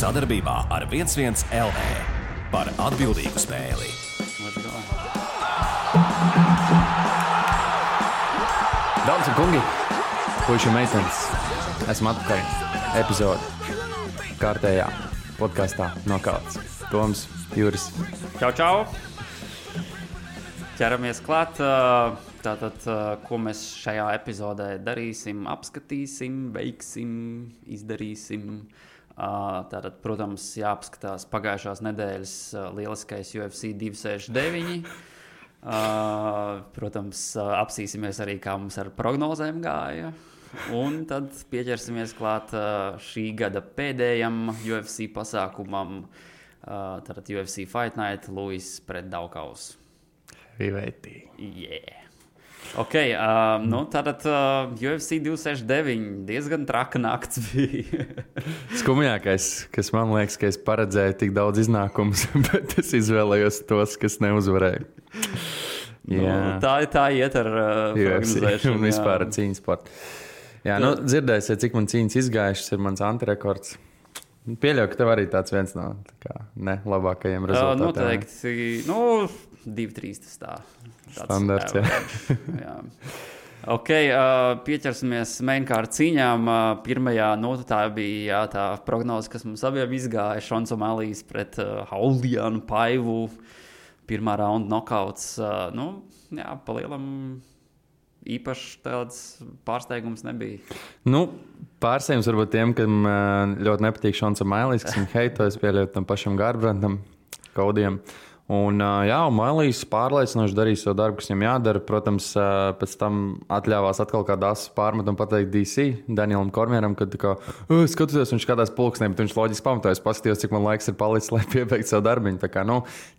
Sadarbībā ar 11 LV par atbildīgu spēli. Dāmas un kungi, puiši un meitenes, esmu atpakaļ epizode kārtējā podkastā Nokauts. Toms, Juris. Čau! Ķeramies klāt. Tātad, ko mēs šajā epizodē darīsim, apskatīsim, veiksim, izdarīsim. Tātad, protams, jāapskatās pagājušās nedēļas lieliskais UFC 269. Protams, apsīsimies arī, kā mums ar prognozēm gāja. Un tad pieķersimies klāt šī gada pēdējam UFC pasākumam. Tātad UFC Fight Night, Luis pret Daukaus. Riveitī. Yeah. Ok, tātad UFC 269 diezgan traka nakts bija. Skumjākais, kas man liekas, ka es paredzēju tik daudz iznākumus, bet es izvēlējos tos, kas neuzvarēja. Tā iet ar prognozēšanu. Un vispār ar cīņas sportu. Jā, dzirdēsiet, cik man cīņas izgājušas, ir mans antirekords. Pieļauju, ka tev arī tāds viens no labākajiem rezultātiem. Noteikti, 2-3 tas tā. Standarts, jā. Ok, pieķersimies mainkārt cīņām. Pirmajā, tā bija tā prognoze, kas mums abiem izgāja. Šons O'Malley's pret Haulianu Paivu. Pirmā raunda nokauts. Palielam īpaši tāds pārsteigums nebija. Pārsteigums varbūt tiem, kam ļoti nepatīk Šons O'Malley's, kas viņu heito, es pieļauju tam pašam Garbrandtam, Kaudiem. Un O'Malley's pārliecinoši darīja savu darbu, kas viņam jādara. Protams, pēc tam atļāvās atkal kādu asu pārmetumu pateikt DC, Danielam Kormieram, kad skatoties, viņš skatās pulksnē, bet viņš loģiski pamatojas, paskatījos, cik man laiks ir palicis, lai piebeigtu savu darbiņu. Tā kā,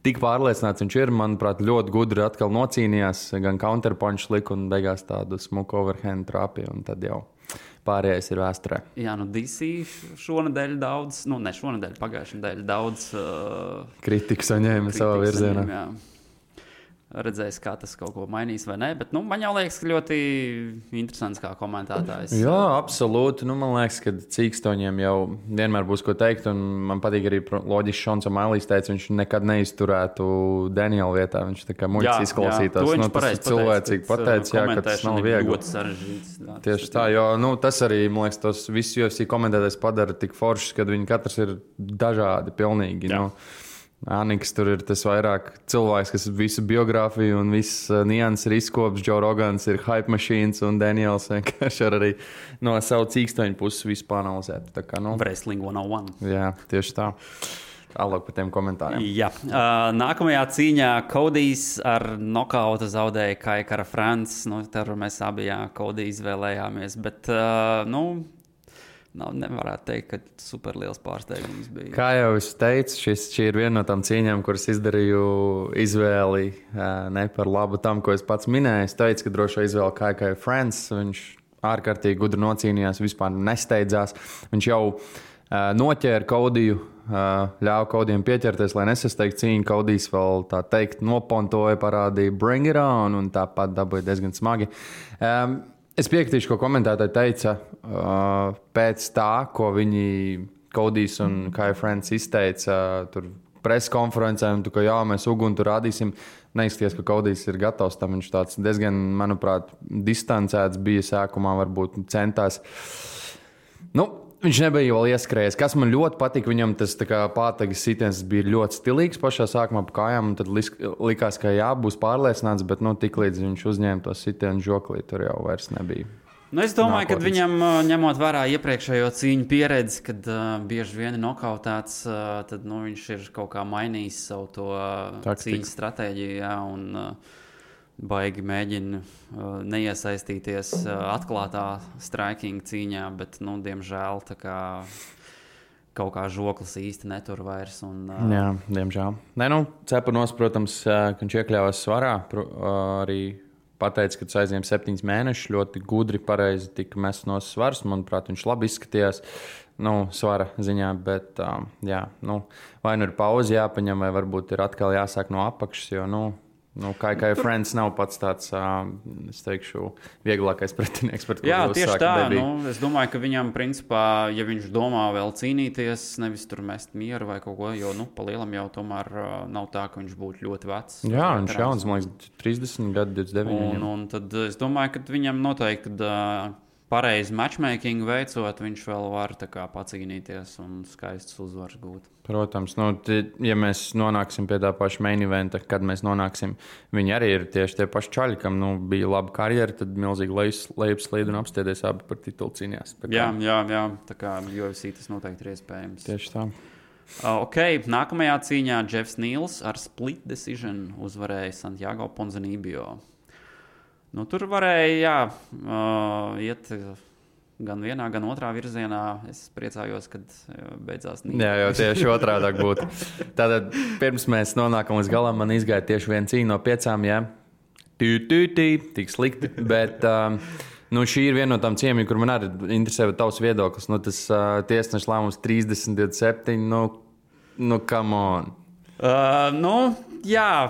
tik pārliecināts viņš ir, manuprāt, ļoti gudri atkal nocīnījās, gan counterpunch lika un beigās tādu smuku overhand trāpīja, un tad jau pārējais ir vēsturē. Jā, DC šonadēļ daudz, ne šonadēļ, pagājušajā nedēļā daudz kritiku saņēma savā virzienā. Jā. Redzēs, kā tas kaut ko mainīs vai nē, bet man jau liekas, ka ļoti interesants kā komentētājs. Jā, absolūti. Man liekas, ka cīkstoņiem jau vienmēr būs ko teikt, un man patīk arī loģiski Šons O'Malley's teica, viņš nekad neizturētu Daniela vietā. Viņš tā kā muļķis izklausītās. Tas ir cilvēcīgi pateicis, ka tas nav viegli. Ļoti sarežģīts. Tieši tā, jo tas arī, man liekas, tos visus UFC komentētājs padara tik foršs, kad viņi katrs ir dažādi pilnīgi. Aniks tur ir tas vairāk cilvēks, kas visu biogrāfiju un visu nianses ir izkops. Joe Rogans ir hype machines un Daniels vienkārši arī no savu cīkstoņu puses visu panalizēt. Wrestling 101. Jā, tieši tā. Tālāk par tiem komentāriem. Jā. Nākamajā cīņā Kodijs ar nokautu zaudēja Kaikara Frants. Tur mēs abi Kodiju izvēlējāmies, bet nevarētu teikt, ka super liels pārsteigums bija. Kā jau es teicu, šī ir viena no tām cīņām, kuras izdarīju izvēli ne par labu tam, ko es pats minēju. Es teicu, ka drošo izvēli Kaikara Frants. Viņš ārkārtīgi gudri nocīnījās, vispār nesteidzās. Viņš jau noķēra Kodiju, ļāva Kodijam pieķerties, lai nesasteigtu cīņu. Kodijs vēl tā teikt nopontoja, parādīja bring it on un tāpat dabūja diezgan smagi. Es piekritīšu, ko komentētāji teica pēc tā, ko viņi Kodijs un Kai Frants izteica tur preses konferencē, un ka mēs uguni tur rādīsim. Neizskatījās, ka Kodijs ir gatavs tam. Viņš tāds diezgan, manuprāt, distancēts bija sākumā, varbūt centās. Viņš nebija vēl ieskrējies. Kas man ļoti patika, viņam tas pātagas sitiens bija ļoti stilīgs pašā sākumā pa kājām, un tad likās, ka būs pārliecināts, bet tiklīdz viņš uzņēma to sitienu žoklī, tur jau vairs nebija. Es domāju, ka viņam, ņemot vērā iepriekšējo cīņu pieredzi, kad bieži vien ir nokautēts, tad viņš ir kaut kā mainījis savu to cīņas stratēģiju, un baigi mēģina neiesaistīties atklātā striking cīņā, bet, diemžēl, kaut kā žoklis īsti netur vairs. Jā, diemžēl. Cepanos, protams, ka viņš iekļāvās svarā, arī pateica, ka tas aizņem 7 mēnešus, ļoti gudri, pareizi tika mests no svars. Manuprāt, viņš labi izskatījās svara ziņā, bet vai ir pauze jāpaņem, vai varbūt ir atkal jāsāk no apakšas, jo, Kā Friends nav pats tāds, es teikšu, vieglākais pretinieks, par ko tieši tā. Es domāju, ka viņam, principā, ja viņš domā vēl cīnīties, nevis tur mest mieru vai kaut ko, jo, pa lielam jau tomēr nav tā, ka viņš būtu ļoti vecs. Jā, viņš jauns, man liekas, 30 gadu, 29. Un tad es domāju, ka viņam noteikti, pareizi matchmaking veicot, viņš vēl var pacīnīties un skaistas uzvaras gūt. Protams, ja mēs nonāksim pie tā paša main eventa, kad mēs nonāksim, viņi arī ir tieši tie paši čaļi, kam bija laba karjera, tad milzīgi lejupslīd un apstiedies abi par titulu cīnījās. Jā, tā kā UFC tas noteikti ir iespējams. Tieši tā. Nākamajā cīņā Jeffs Neals ar split decision uzvarēja Santiago Ponzinibbio. Tur varēja iet gan vienā, gan otrā virzienā. Es priecājos, kad beidzās Nīderlandē. Jā, jau tieši otrādāk būtu. Tātad pirms mēs nonākam līdz galam, man izgāja tieši viena cīņa no 5, jā. Tik slikti, bet šī ir viena no tām cīņām, kur man arī interesē tavs viedoklis. Tas tiesneša lēmums 30-27, come on. Jā,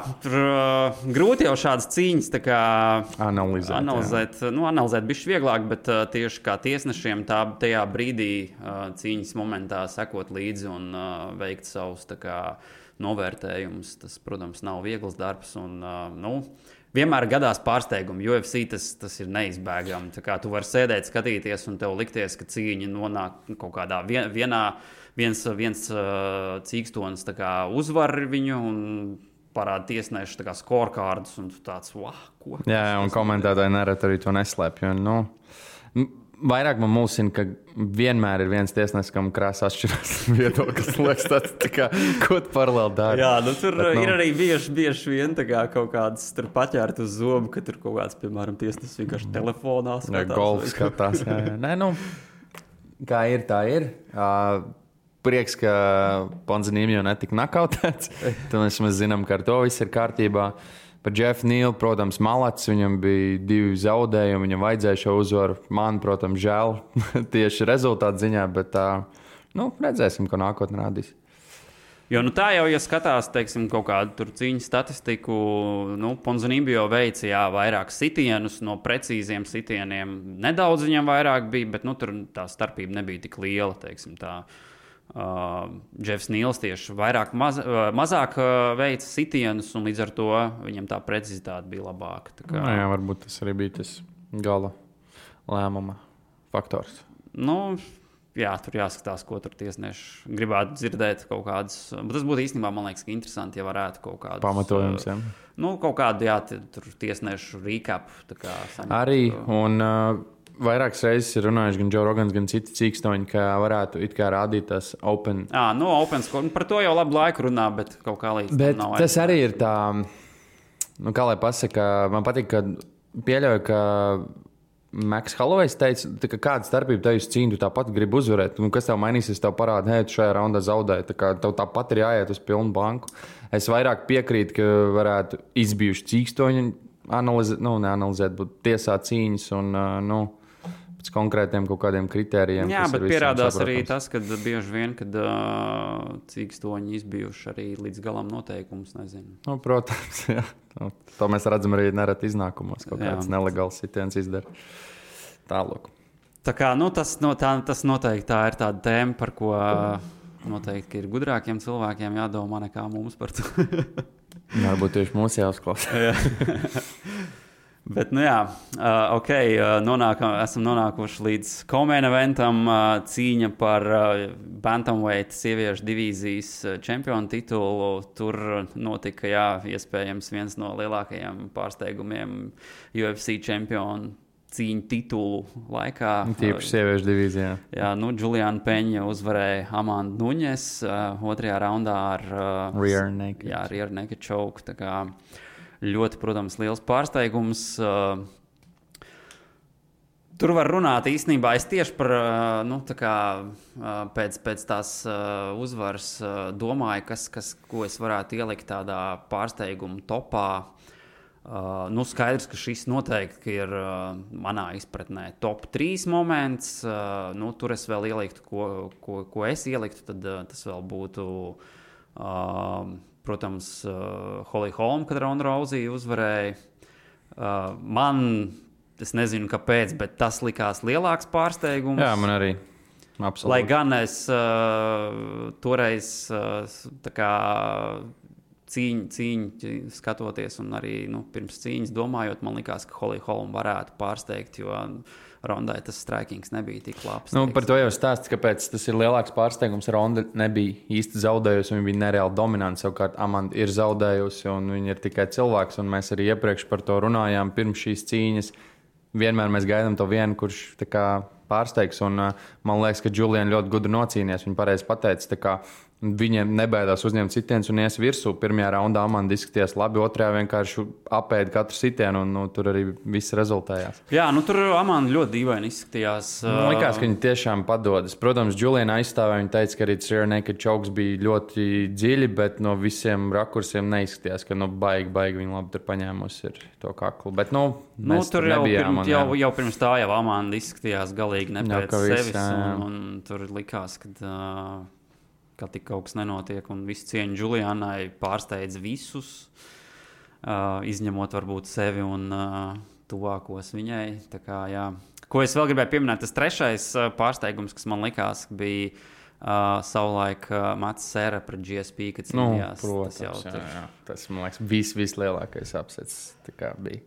grūti jau šādas cīņas analizēt. Analizēt bišķi vieglāk, bet tieši kā tiesnešiem tajā brīdī cīņas momentā sekot līdzi un veikt savus novērtējumus. Tas, protams, nav viegls darbs. Un, vienmēr gadās pārsteigumi. UFC tas ir neizbēgami. Tu vari sēdēt, skatīties, un tev likties, ka cīņa nonāk kaut kādā viens cīkstonis uzvar viņu un parāda tiesnešu scorecardus, un tu tāds, ko? Jā, un komentētāji nereti arī to neslēpj. Vairāk man mulsina, ka vienmēr ir viens tiesnesis, kam krāsa atšķirās viedoklis. Liekas, ko tu paralēli dari? Jā, tur ir arī bieži vien kaut kādas paķērt uz zobu, ka tur kaut kāds, piemēram, tiesnesis vienkārši telefonā skatās. Golf skatās, jā. Nē, kā ir, tā ir. Prieks, ka Ponzinibbio netika nakautēts. Tad mēs zinām, ka ar to viss ir kārtībā. Par Jeffu Nealu, protams, malats. Viņam bija 2 zaudējumi, viņam vajadzēja šo uzvaru. Man, protams, žēl tieši rezultātu ziņā, bet redzēsim, ko nākotnē rādīs. Jo tā jau, ja skatās, teiksim, kaut kādu cīņu statistiku, Ponzinibbio veica vairāk sitienus no precīziem sitieniem. Nedaudz viņam vairāk bija, bet tur tā starpība nebija tik liela, teiksim tā. Jeffs Neals tieši mazāk veica sitienus, un līdz ar to viņam tā precizitāte bija labāka. Jā, varbūt tas arī bija tas gala lēmuma faktors. Jā, tur jāskatās, ko tur tiesneši gribētu dzirdēt kaut kādus. Bet tas būtu īstenībā, man liekas, interesanti, ja varētu kaut kādus pamatojums. Kaut kādu, tur tiesnešu recap. Arī, un vairākas reizes ir runājuši gan Joe Rogans, gan citi cīkstoņi, ka varētu rādīt tās open. Open score. Par to jau labu laiku runā, bet kaut kā līdz tam nav. Bet tas arī ir tā, kā lai pasaka, man patīk, ka pieļauju, ka Maks Hollowejs teica, ka kāda starpība tev uz cīņu, tu tāpat gribi uzvarēt. Kas tev mainīsies, tev parāda, tu šajā raundā zaudēji. Tev tāpat ir jāiet uz pilnu banku. Es vairāk piekrītu, ka varētu izbijuši cīkstoņi neanalizēt, bet tiesāt cīņas un pēc konkrētiem kaut kādiem kritērijiem. Jā, bet pierādās arī tas, ka bieži vien, kad cīkstoņi izbijuši arī līdz galam noteikumus, nezinu. Protams, jā. To mēs redzam arī nereti iznākumos, kaut kāds nelegāls sitiens izdara. Tālāk. Tā kā, tas noteikti tā ir tāda tēma, par ko noteikti ir gudrākiem cilvēkiem jādomā nekā mums par to. Varbūt tieši mūsu jāuzklausa. Bet, esam nonākuši līdz co-main eventam, cīņa par bantamweight sieviešu divīzijas čempionu titulu. Tur notika, iespējams, viens no lielākajiem pārsteigumiem UFC čempionu cīņu titulu laikā. Tīpaši sieviešu divīzijā. Jā, Juliana Peņa uzvarēja Amandu Nuņes otrajā raundā ar rear naked. Jā, rear naked choke. Tā kā ļoti, protams, liels pārsteigums. Tur var runāt īstenībā. Es tieši par, pēc tās uzvaras domāju, ko es varētu ielikt tādā pārsteiguma topā. Skaidrs, ka šis noteikti ir manā izpratnē top 3 moments. Tur es vēl ieliktu, ko es ieliktu, tad tas vēl būtu protams, Holly Holm, kad Ronda Rousey uzvarēja. Es nezinu, kāpēc, bet tas likās lielāks pārsteigums. Jā, man arī. Absolūti. Lai gan es toreiz tā kā cīņu skatoties un arī pirms cīņas domājot, man likās, ka Holly Holm varētu pārsteigt, jo Rondai tas strikings nebija tik labs. Par to jau stāsts, kāpēc tas ir lielāks pārsteigums. Ronda nebija īsti zaudējusi, viņa bija nereāli dominanta. Savukārt Amanda ir zaudējusi, un viņa ir tikai cilvēks, un mēs arī iepriekš par to runājām pirms šīs cīņas. Vienmēr mēs gaidām to vienu, kurš tā kā pārsteigs, un man liekas, ka Juliana ļoti gudri nocīnījās. Viņa pareizi pateica, ka viņiem nebaidās uzņemt sitienus un ies virsū. Pirmajā raundā Amanda izskatījās labi, otrajā vienkārši apēda katru sitienu, un tur arī viss rezultējās. Jā, tur Amanda ļoti dīvaini izskatījās. Man likās, ka viņa tiešām padodas. Protams, Juliana aizstāvēja, viņa teica, ka arī Rear Naked Chokes bija ļoti dziļi, bet no visiem rakursiem neizskatījās, ka baigi viņa labi tur paņēmusi ir to kaklu. Bet, mēs tur nebijām. Jau pirms tā jau Amanda izskatījās galīgi ne pēc sevis, un tur likās, ka tik kaut kas nenotiek, un visu cieņu Julianai pārsteidz visus, izņemot varbūt sevi un tuvākos viņai. Tā kā, jā. Ko es vēl gribēju pieminēt, tas trešais pārsteigums, kas man likās, bija savulaik Mats Sēra pret GSP, kad cīnījās. Protams, jā. Tas, man liekas, vislielākais apsets tā kā bija.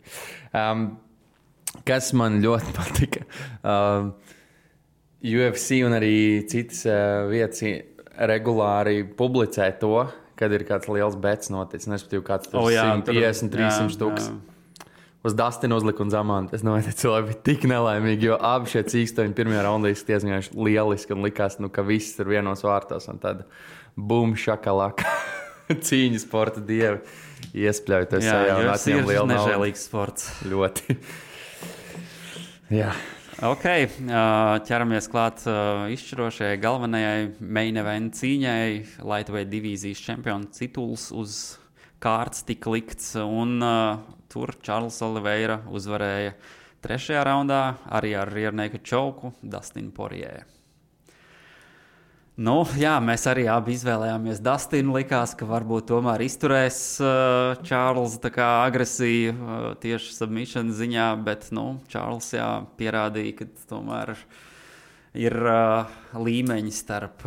Kas man ļoti patika, UFC un arī citas vietas regulāri publicē to, kad ir kāds liels bets noticis. Nesapratīju, kāds tur 150, 300 tūkstoši. Uz Dustinu uzlika un Zamantu. Es domāju, ka cilvēki bija tik nelaimīgi, jo abi šie cīkstoņi pirmajā raundā izskatījās lieliski un likās, ka viss ir vienos vārtos. Un tad bum, šakalaka. Cīņu sporta dievi iespļaujoties sajā un atņem lielu naudu. Nežēlīgs sports. Ļoti. Jā. Ok, ķeramies klāt izšķirošajai galvenajai main event cīņai. Lightweight divīzijas čempiona tituls uz kārtas tika likts, un tur Charles Oliveira uzvarēja trešajā raundā arī ar Rear Naked Choke Dustin Poirier. Jā, mēs arī abi izvēlējāmies Dustinu. Likās, ka varbūt tomēr izturēs Čārls tā kā agresiju tieši submission ziņā, bet Čārls pierādīja, ka tomēr ir līmeņi starp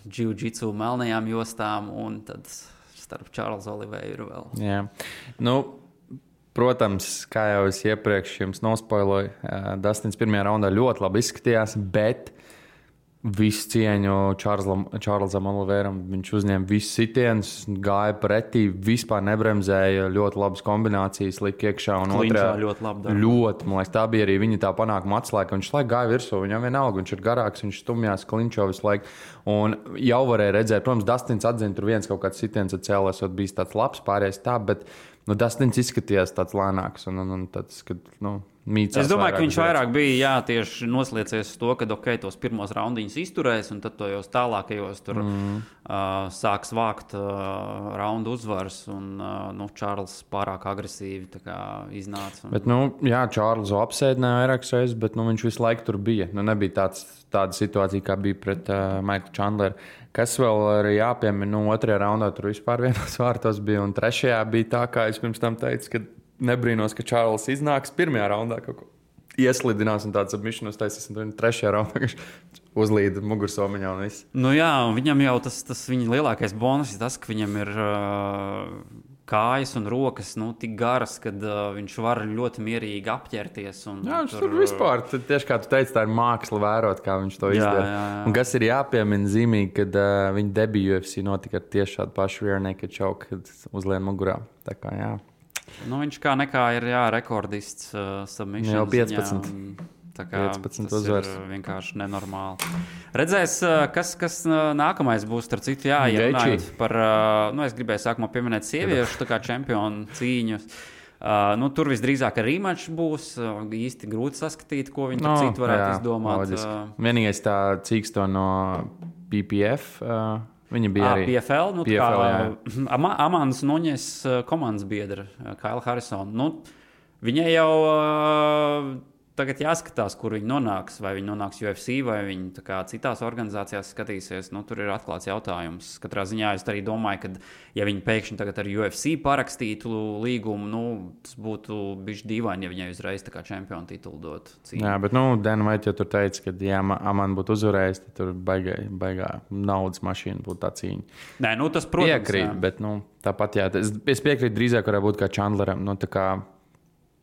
jiu-jitsu melnajām jostām un tad starp Čārls Oliveiru vēl. Jā. Protams, kā jau es iepriekš jums nospoiloju, Dustins pirmajā raundā ļoti labi izskatījās, bet visu cieņu Čārlzam Oliveiram. Viņš uzņēma visus sitienus, gāja pretī, vispār nebremzēja, ļoti labas kombinācijas lika iekšā. Un otrā ļoti labi. Ļoti, man liekas, tā bija arī viņa tā panākuma atslēga. Viņš laiku gāja virsū, viņam vienalga, viņš ir garāks, viņš stumjās, klinčo visu laiku. Un jau varēja redzēt, protams, Dustins atzina, tur viens kaut kāds sitiens atcēlēs, bijis tāds labs, pārējais tā, bet Dustins izskatījās tāds lēnāks un tāds, kad, mīcās. Es domāju, ka viņš vairāk bija tieši nosliecies uz to, ka tos pirmos raundiņus izturēs, un tad tojos tālākajos tur sāks vākt raundu uzvaras, un Čārls pārāk agresīvi tā kā iznāca. Bet, Čārlzu apsēdināja vairākas reizes, bet viņš visu laiku tur bija. Nebija tāda situācija, kā bija pret Maiklu Chandleru. Kas vēl arī jāpiemina, otrajā raundā tur vispār vienos vārtos bija, un trešajā bija tā, kā es pirms tam teicu, ka nebrīnos, ka Čārls iznāks pirmajā raundā kaut ko ieslidinās un tāds submission uztaisīs, un trešajā raundā uzlīd mugursomiņā un viss. Viņam jau tas viņa lielākais bonus ir tas, ka viņam ir kājas un rokas tik garas, kad viņš var ļoti mierīgi apķerties. Viņš tur vispār, tieši kā tu teici, tā ir māksla vērot, kā viņš to izdara. Jā. Un kas ir jāpiemina zīmīgi, kad viņa debija UFC notika ar tieši šādu pašu Rear Naked Choke, kad uzlien mugurā. Tā kā, jā. Viņš kā nekā ir rekordists submission. Jau 15. Tā kā 15 uzvaras. Ir vienkārši nenormāli. Redzēs, kas nākamais būs, starp citu, runājot par, es gribēju sākumā pieminēt sieviešu, tā kā čempionu cīņus. Tur visdrīzāk rematch būs, īsti grūti saskatīt, ko viņi tur citu varētu izdomāt. Vienīgais tā cīksto no PPF, viņa bija arī PFL, Amandas Nuņes komandas biedra, Kaila Harrisona. Viņai jau tagad jāskatās, kur viņi nonāks. Vai viņi nonāks UFC, vai viņi citās organizācijās skatīsies. Tur ir atklāts jautājums. Katrā ziņā es arī domāju, ka, ja viņi pēkšņi tagad ar UFC parakstītu līgumu, tas būtu bijis dīvaini, ja viņai uzreiz čempionu titulu dot. Jā, bet Dan White jau tur teica, ka, ja Amanda būtu uzvarējis, tad tur baigā naudas mašīna būtu tā cīņa. Nē, tas, protams, piekrīt, bet tāpat, jā. Es piekrītu drīzāk, varētu būt kā Chandleram.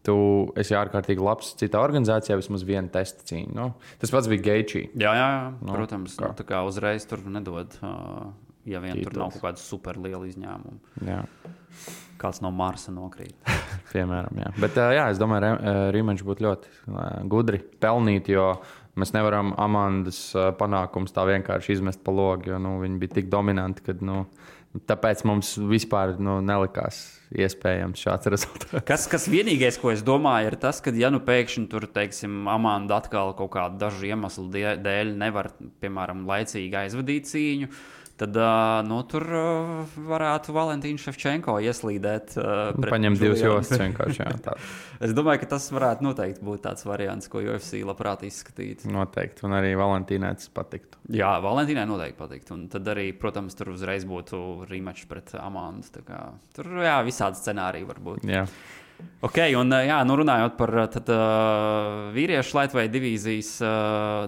Tu esi ārkārtīgi labs citā organizācijā, vismaz viena testa cīņa. Tas pats bija Geičī. Jā, protams. Kā uzreiz tur nedod, ja vien tur nav kaut kāda superliela izņēmuma. Jā. Kāds no Marsa nokrīt. Piemēram, jā. Bet es domāju, rematch būtu ļoti gudri pelnīt, jo mēs nevaram Amandas panākums tā vienkārši izmest pa logu, jo viņi bija tik dominanti, ka tāpēc mums vispār nelikās iespējams šāds rezultāts. Kas vienīgais, ko es domāju, ir tas, ka, ja pēkšņi tur, teiksim, Amanda atkal kaut kādu dažu iemeslu dēļ nevar, piemēram, laicīgi aizvadīt cīņu, tad tur varētu Valentīnu Ševčenko ieslīdēt. Paņemt divas jostas vienkārši. Es domāju, ka tas varētu noteikti būt tāds variants, ko UFC labprāt izskatītu. Noteikti, un arī Valentīnai tas patiktu. Jā, Valentīnai noteikti patiktu. Un tad arī, protams, tur uzreiz būtu rematch pret Amandu. Tur visādi scenāriji var būt. Jā. Ok, un runājot par vīriešu lightweight divīzijas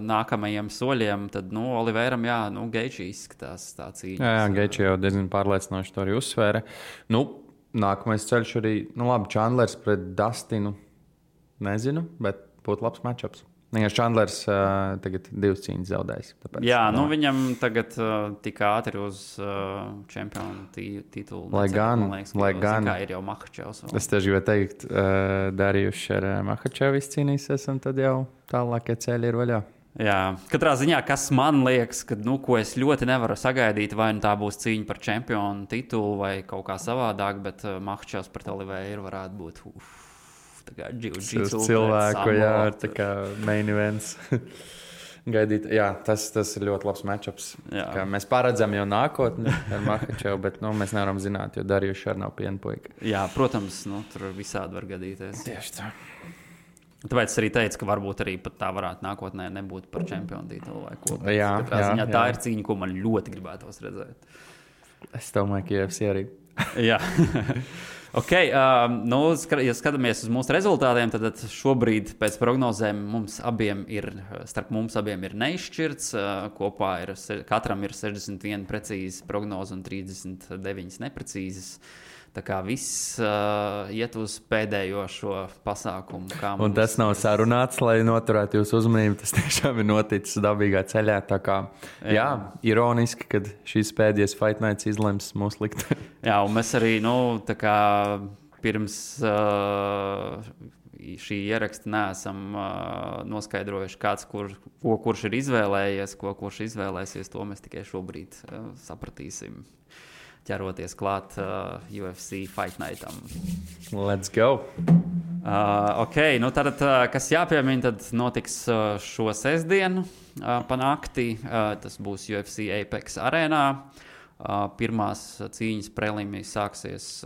nākamajiem soļiem, tad Oliveram, Geičī izskatās tā cīņa. Jā, Geičī jau diezgan pārliecinoši to arī uzsvēra. Nākamais ceļš arī, labi, Chandlers pret Dustinu, nezinu, bet būtu labs matchups. Chandlers tagad 2 cīņas zaudējis. Tāpēc, viņam tagad tik ātri uz čempionu titulu. Lai gan ir jau Makhačevs. Es tieši gribēju teikt, Darījus ar Makhačevu izcīnīsies, un tad jau tālākie ceļi ir vaļā. Jā, katrā ziņā, kas man liekas, ka, ko es ļoti nevaru sagaidīt, vai tā būs cīņa par čempionu titulu vai kaut kā savādāk, bet Makhačevs pret Oliveru varētu būt cilvēku, ar tā kā main events. Gaidīt, tas ir ļoti labs matchups. Mēs paredzam jau nākotni ar Makhačevu, bet mēs nevaram zināt, jo Darījus arī nav pienpuika. Jā, protams, tur visādi var gadīties. Tieši tā. Tāpēc es arī teicu, ka varbūt arī pat tā varētu nākotnē nebūt par čempionu titulu vai ko. Tā ir cīņa, ko man ļoti gribētos redzēt. Es domāju, ka UFC arī. Jā. Ok, ja skatāmies uz mūsu rezultātiem, tad šobrīd pēc prognozēm starp mums abiem ir neizšķirts. Kopā katram ir 61 precīzas prognozes un 39 neprecīzas. Tā kā viss iet uz pēdējo šo pasākumu. Un tas nav sarunāts, lai noturētu jūsu uzmanību. Tas tiešām ir noticis dabīgā ceļā. Tā kā, ironiski, kad šīs pēdējais Fight Nights izlems mūsu likteni. Jā, un mēs arī, pirms šī ieraksta neesam noskaidrojuši, kurš ir izvēlējies, kurš izvēlēsies. To mēs tikai šobrīd sapratīsim. Ķeroties klāt UFC Fight Nightam. Let's go! Ok, tad, kas jāpiemina, tad notiks šo sestdienu pa nakti. Tas būs UFC Apex arēnā. Pirmās cīņas prelīmijas sāksies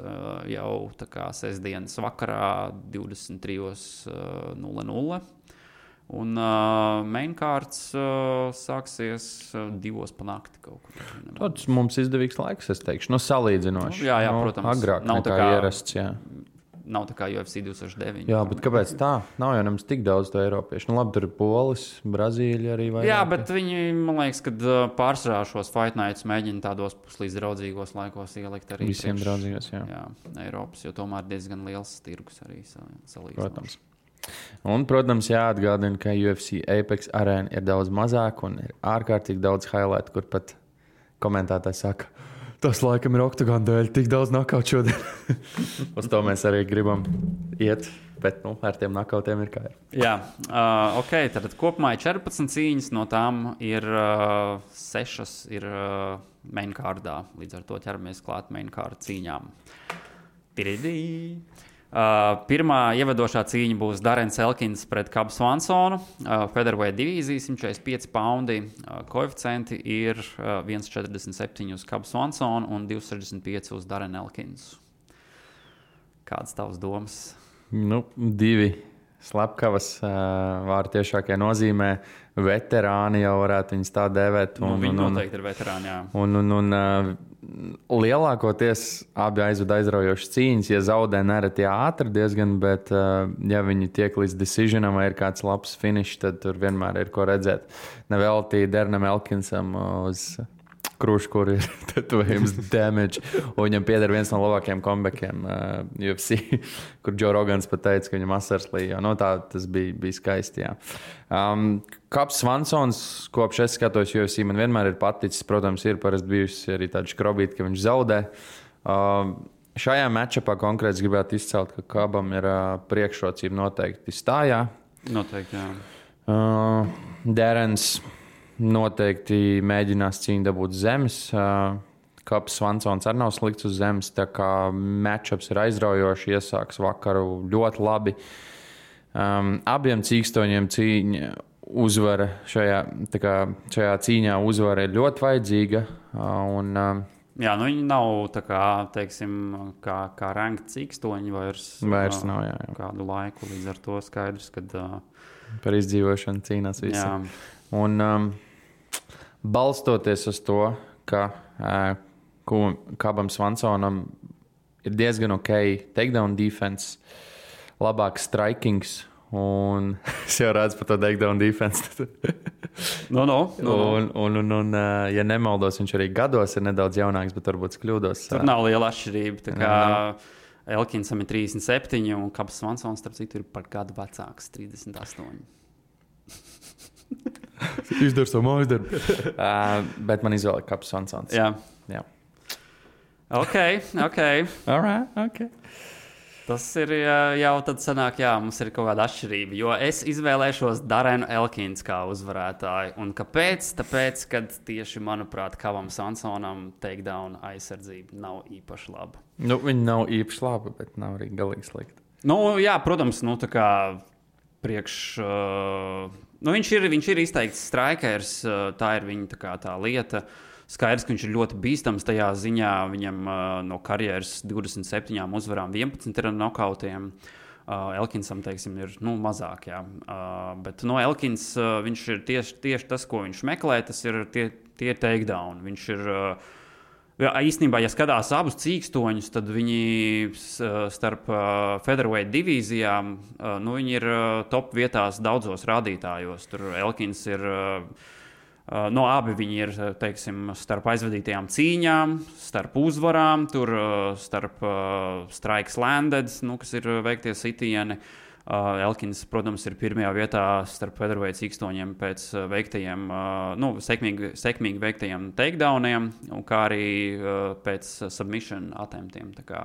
jau sestdienas vakarā 23:00. Un mainkārts sāksies 2:00 pa nakti kaut kur. Tas mums izdevīgs laiks, es teikšu. Salīdzinoši. Jā, protams. Agrāk nekā ierasts, jā. Nav tā kā UFC 2009. Jā, bet kāpēc tā? Nav jau nemaz tik daudz to eiropiešu. Labi, tur ir Polis, Brazīļa arī vairāk. Jā, bet viņi, man liekas, kad pārsvarā šos Fight Nights mēģina tādos puslīdz draudzīgos laikos ielikt arī. Visiem draudzīgos, jā. Jā, Eiropas, jo tomēr diezgan liels tirgus arī salīdzinoši. Protams. Un, protams, jāatgādina, ka UFC Apex arēna ir daudz mazāk un ir ārkārtīgi daudz highlight, kur pat komentētāji saka, tas laikam ir Octagon dēļ, tik daudz knockout šodien. Uz to mēs arī gribam iet, bet ar tiem knockoutiem ir kā ir. Jā, ok, tad kopumā ir 14 cīņas, no tām ir 6 ir mainkārdā, līdz ar to ķeramies klāt mainkārda cīņām. Pirmā ievadošā cīņa būs Darrens Elkins pret Cub Swansonu. Featherweight divīzija, 145 poundi. Koeficienti ir 1,47 uz Cub Swansonu un 2,65 uz Darren Elkinsu. Kādas tavas domas? 2 slepkavas vārdu tiešākajā nozīmē. Veterāni jau varētu viņus tā dēvēt. Viņi noteikti ir veterāni, jā. Lielākoties abi aizved aizraujošas cīņas. Ja zaudē nereti ātri diezgan, bet ja viņi tiek līdz decisionam vai ir kāds labs finišs, tad tur vienmēr ir ko redzēt. Nevelti Darrenam Elkinsam uz krūšu, kur ir tetovējums damage. Un viņam pieder viens no labākajiem comebackiem UFC, kur Joe Rogans pat teica, ka viņam asars līja. Tas bija skaisti, jā. Kaps Svansons, kopš es skatos UFC, man vienmēr ir paticis. Protams, ir parasti bijusi arī tāda škrobīta, ka viņš zaudē. Šajā matchupā konkrēti gribētu izcelt, ka Kabam ir priekšrocība noteikti stājā. Noteikti, jā. Darrens noteikti mēģinās cīņu dabūt zemes. Kaps Svansons arī nav slikts uz zemes, tā kā matchups ir aizraujoši, iesāks vakaru ļoti labi. Abiem cīkstoņiem cīņa uzvara šajā cīņā uzvara ir ļoti vajadzīga. Jā, viņi nav tā kā, teiksim, kā ranked cīkstoņi vairs nav, jā. Kādu laiku, līdz ar to skaidrs, kad par izdzīvošanu cīnās visi. Jā. Un balstoties uz to, ka Kabam Svansonam ir diezgan ok takedown defense, labāks strikings, un es jau redzu par to takedown defense. Un, ja nemaldos, viņš arī gados ir nedaudz jaunāks, bet varbūt kļūdos. Tur nav liela atšķirība. Tā kā Elkinsam ir 37, un Kabs Svansons, starp citu, ir par gadu vecāks, 38. Izdara savu mājas darbu. Bet man izvēlēja Kaps Svansons. Jā. Ok. All right, ok. Tas ir jau tad sanāk, jā, mums ir kaut kāda atšķirība. Jo es izvēlēšos Darrenu Elkins kā uzvarētāju. Un kāpēc? Tāpēc, kad tieši, manuprāt, Kabam Svansonam takedown aizsardzība nav īpaši laba. Viņa nav īpaši laba, bet nav arī galīgi slikta. Jā, protams, tā kā viņš ir izteikts strikers, tā ir viņa tā lieta. Skaidrs, ka viņš ir ļoti bīstams tajā ziņā. Viņam no karjeras 27 uzvarām 11 ir nokautiem. Elkinsam, teiksim, ir mazāk, jā. Bet Elkins, viņš ir tieši tas, ko viņš meklē, tas ir tie takedown. Viņš ir, īstenībā, ja skatās abus cīkstoņus, tad viņi starp featherweight divīzijām, viņi ir top vietās daudzos rādītājos. Tur Elkins ir... abi viņi ir, teiksim, starp aizvadītajām cīņām, starp uzvarām, tur starp strikes landed, kas ir veiktie sitieni. Elkins, protams, ir pirmajā vietā starp featherweight cīkstoņiem pēc veiktajiem, sekmīgi veiktajiem takedowniem, kā arī pēc submission attemptiem. Tā kā,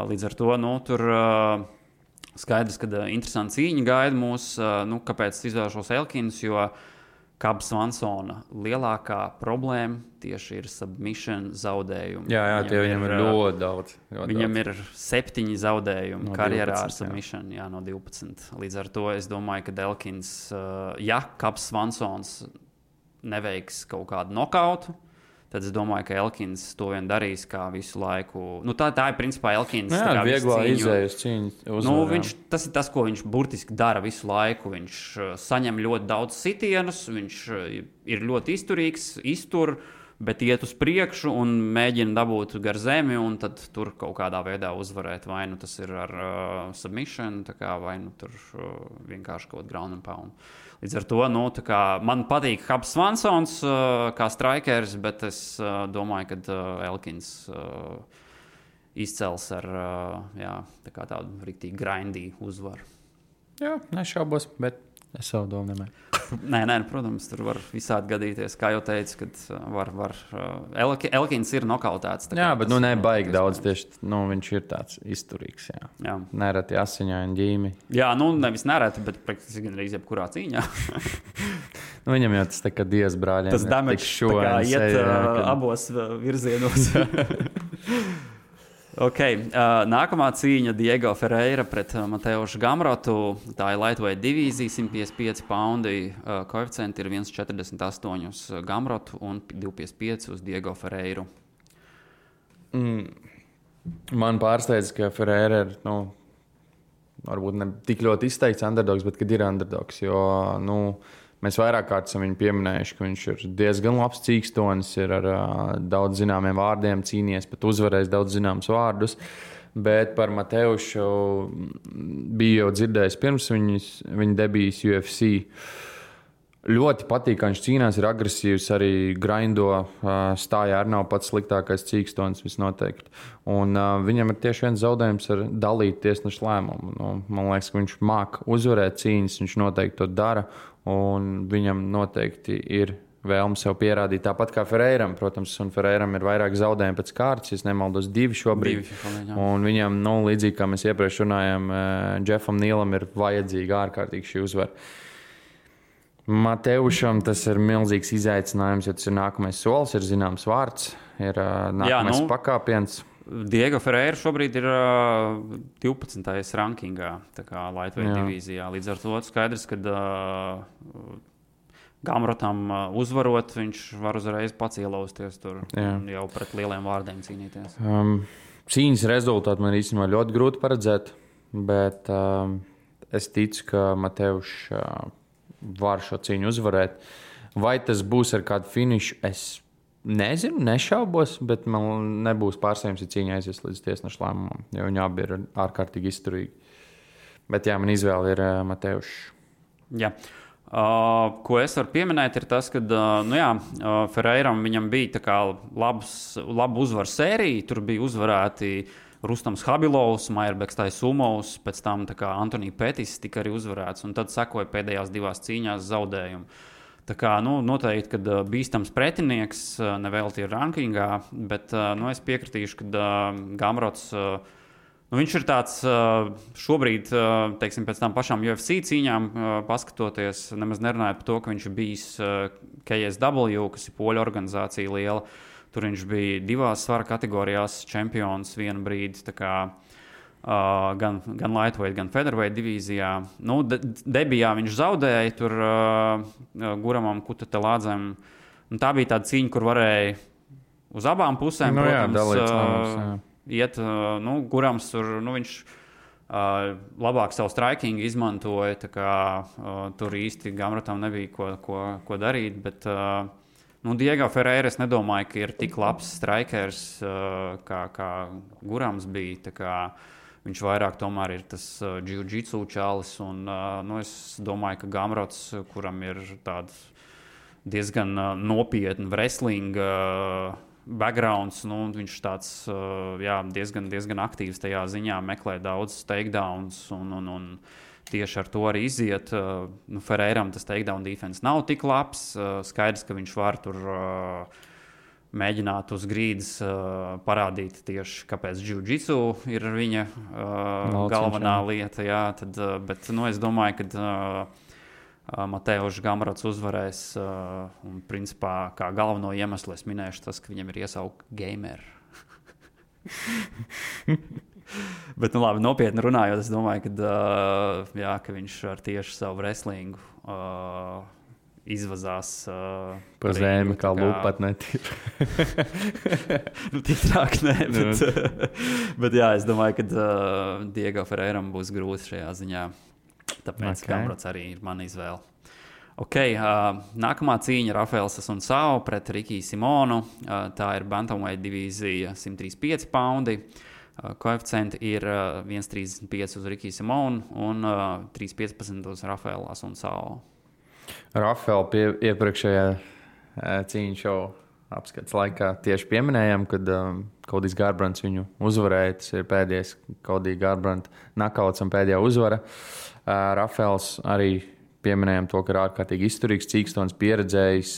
līdz ar to, tur skaidrs, ka interesanti cīņa gaida mūs, kāpēc izvēlēšos Elkins, jo Kabs Svansona lielākā problēma tieši ir submission zaudējumi. Jā, tie viņam ir ļoti daudz. Viņam ir 7 zaudējumi no karjerā 12, ar submission, jā, no 12. Līdz ar to es domāju, ka Elkins, ja Kabs Svansons neveiks kaut kādu nokautu, tad es domāju, ka Elkins to vien darīs kā visu laiku. Tā ir principā Elkins. Jā, vieglā izējas cīņa. Tas ir tas, ko viņš burtiski dara visu laiku. Viņš saņem ļoti daudz sitienus, viņš ir ļoti izturīgs, iztur, bet iet uz priekšu un mēģina dabūt gar zemi un tad tur kaut kādā veidā uzvarēt. Vai tas ir ar submission, vai tur vienkārši kaut ground and pound. Līdz ar to, man patīk Kabs Svansons kā strikers, bet es domāju, ka Elkins izcels ar tādu riktīgi grindī uzvaru. Jā, nešaubos, bet es savu domu nemēju. Nē, protams, tur var visādi gadīties. Kā jau teicu, kad Elkins ir nokautēts. Jā, bet nebaigi daudz tieši. Viņš ir tāds izturīgs. Jā. Nereti asiņaini ģīmi. Jā, nevis nereti, bet praktiski gan arī jebkurā cīņā. Viņam jau tas tā kā Dievs brāļiem. Tas damage tā kā iet abos virzienos. Ok, nākamā cīņa Diego Ferreira pret Mateušu Gamrotu. Tā ir lightweight divīzija, 155 poundi. Koeficienti ir 1,48 uz Gamrotu un 2,55 uz Diego Ferreiru. Man pārsteidz, ka Ferreira ir varbūt ne tik ļoti izteikts underdogs, bet kad ir underdogs. Jo, mēs vairāk kārt esam viņu pieminējuši, ka viņš ir diezgan labs cīkstonis, ir ar daudz zināmiem vārdiem cīnījies, pat uzvarējis daudz zināmus vārdus. Bet par Mateušu bija jau dzirdējis pirms viņa debijas UFC. Ļoti patīk, ka viņš cīnās, ir agresīvs, arī grindo, stājā arī nav pats sliktākais cīkstonis visnoteikti. Un viņam ir tieši viens zaudējums ar dalīt tiesnešu lēmumu. Man liekas, ka viņš māk uzvarēt cīņas, viņš noteikti to dara, un viņam noteikti ir vēlme sev pierādīt. Tāpat kā Ferreiram, protams, un Ferreiram ir vairāk zaudējumi pēc kārtas, ja nemaldos 2 šobrīd. Un viņam, līdzīgi kā mēs iepriekš runājām, Jeffam Nīlam ir vajadzīga ārkārtīgi šī uzvara. Mateušam tas ir milzīgs izaicinājums, jo tas ir nākamais solis, ir zināms vārds, ir nākamais pakāpiens. Diego Ferreira šobrīd ir 12. rankingā, tā kā lightweight divīzijā. Līdz ar to skaidrs, ka Gamrotam uzvarot, viņš var uzreiz pats ielausties tur un jau pret lieliem vārdiem cīnīties. Cīņas rezultātu man īstenībā ļoti grūti paredzēt, bet es ticu, ka Mateušs var šo cīņu uzvarēt. Vai tas būs ar kādu finišu, es nezinu, nešaubos, bet man nebūs pārsteigums, ja cīņa aizies līdz tiesnešu lēmumam, jo viņi abi ir ārkārtīgi izturīgi. Bet man izvēle ir Mateušs. Jā. Ko es varu pieminēt, ir tas, ka Ferreiram viņam bija tā kā laba uzvaru sērija, tur bija uzvarēti Rustams Habilovs, Maierbeks Taisumovs, pēc tam Antonija Petis tika arī uzvarēts, un tad sekoja pēdējās 2 cīņās zaudējumi. Tā kā, noteikti, kad bīstams pretinieks, nevēlti ir rankingā, bet es piekritīšu, ka Gamrots, viņš ir tāds šobrīd, teiksim, pēc tām pašām UFC cīņām paskatoties, nemaz nerunājot par to, ka viņš ir bijis KSW, kas ir poļu organizācija liela. Tur viņš bija 2 svara kategorijās čempions vienu brīdi, tā kā gan lightweight, gan featherweight divīzijā. Debijā viņš zaudēja tur Guramam Kutatelādzem. Tā bija tāda cīņa, kur varēja uz abām pusēm, protams, iet. Gurams tur, viņš labāk savu striking izmantoja, tā kā tur īsti Gamrotam nebija ko darīt, bet Diego Ferreira es nedomāju, ka ir tik labs strikers, kā Gurams bija. Tā kā viņš vairāk tomēr ir tas jiu-jitsu čalis. Un, es domāju, ka Gamrots, kuram ir tāds diezgan nopietni wrestling backgrounds, viņš tāds diezgan aktīvs tajā ziņā, meklē daudz takedowns un tieši ar to arī iziet. Ferreiram tas takedown defense nav tik labs. Skaidrs, ka viņš var tur mēģināt uz grīdas parādīt tieši, kāpēc jiu-jitsu ir viņa galvenā lieta. Jā, bet es domāju, ka Mateušs Gamrots uzvarēs. Un principā kā galveno iemeslu es minēšu tas, ka viņam ir iesaukt gamer. Bet, labi, nopietni runājot, es domāju, ka viņš ar tieši savu wrestlingu izvazās pa zemi, kā lūpat netīr. Tik trāk, nē, bet es domāju, ka Diego Ferreiram būs grūti šajā ziņā. Tāpēc Gamrots arī ir mana izvēle. Nākamā cīņa Rafaels Asuncao pret Rikiju Simonu. Tā ir bantamweight divīzija 135 paundi. Koeficienti ir 1,35 uz Rikiju Simonu un 3,15 uz Rafaelu Asuncao. Rafaelu iepriekšējā cīņu šovu apskats laikā tieši pieminējām, kad Kodijs Garbrands viņu uzvarēja. Tas ir pēdējais Kodija Garbranda nakauts un pēdējā uzvara. Rafaels arī pieminējām to, ka ir ārkārtīgi izturīgs, cīkstonis, pieredzējis,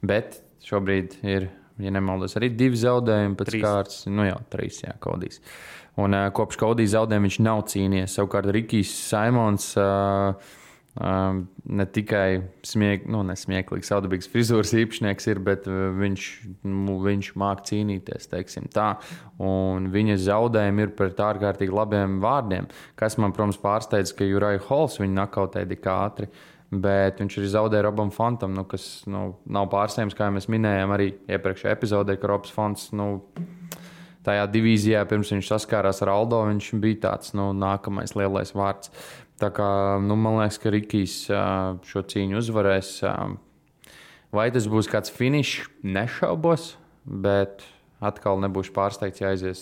bet šobrīd ir, ja nemaldos, arī 2 zaudējumi pēc kārtas. 3, Kodijs. Un kopš Kodija zaudējuma viņš nav cīnījies. Savukārt Rikijs Simons ne tikai nesmieklīgs, saudabīgs frizūras īpašnieks ir, bet viņš māk cīnīties, teiksim tā. Un viņa zaudējumi ir pret ārkārtīgi labiem vārdiem, kas man, protams, pārsteidz, ka Uriah Halls viņu nakautēja tik ātri, bet viņš arī zaudēja Robam Fontam, kas nav pārsteigums, kā mēs minējām arī iepriekšējā epizodē, ka Robs Fonts tajā divīzijā, pirms viņš saskārās ar Aldo, viņš bija tāds nākamais lielais vārds. Tā kā, man liekas, ka Rikijs šo cīņu uzvarēs. Vai tas būs kāds finišs? Nešaubos, bet atkal nebūšu pārsteigts, ja aizies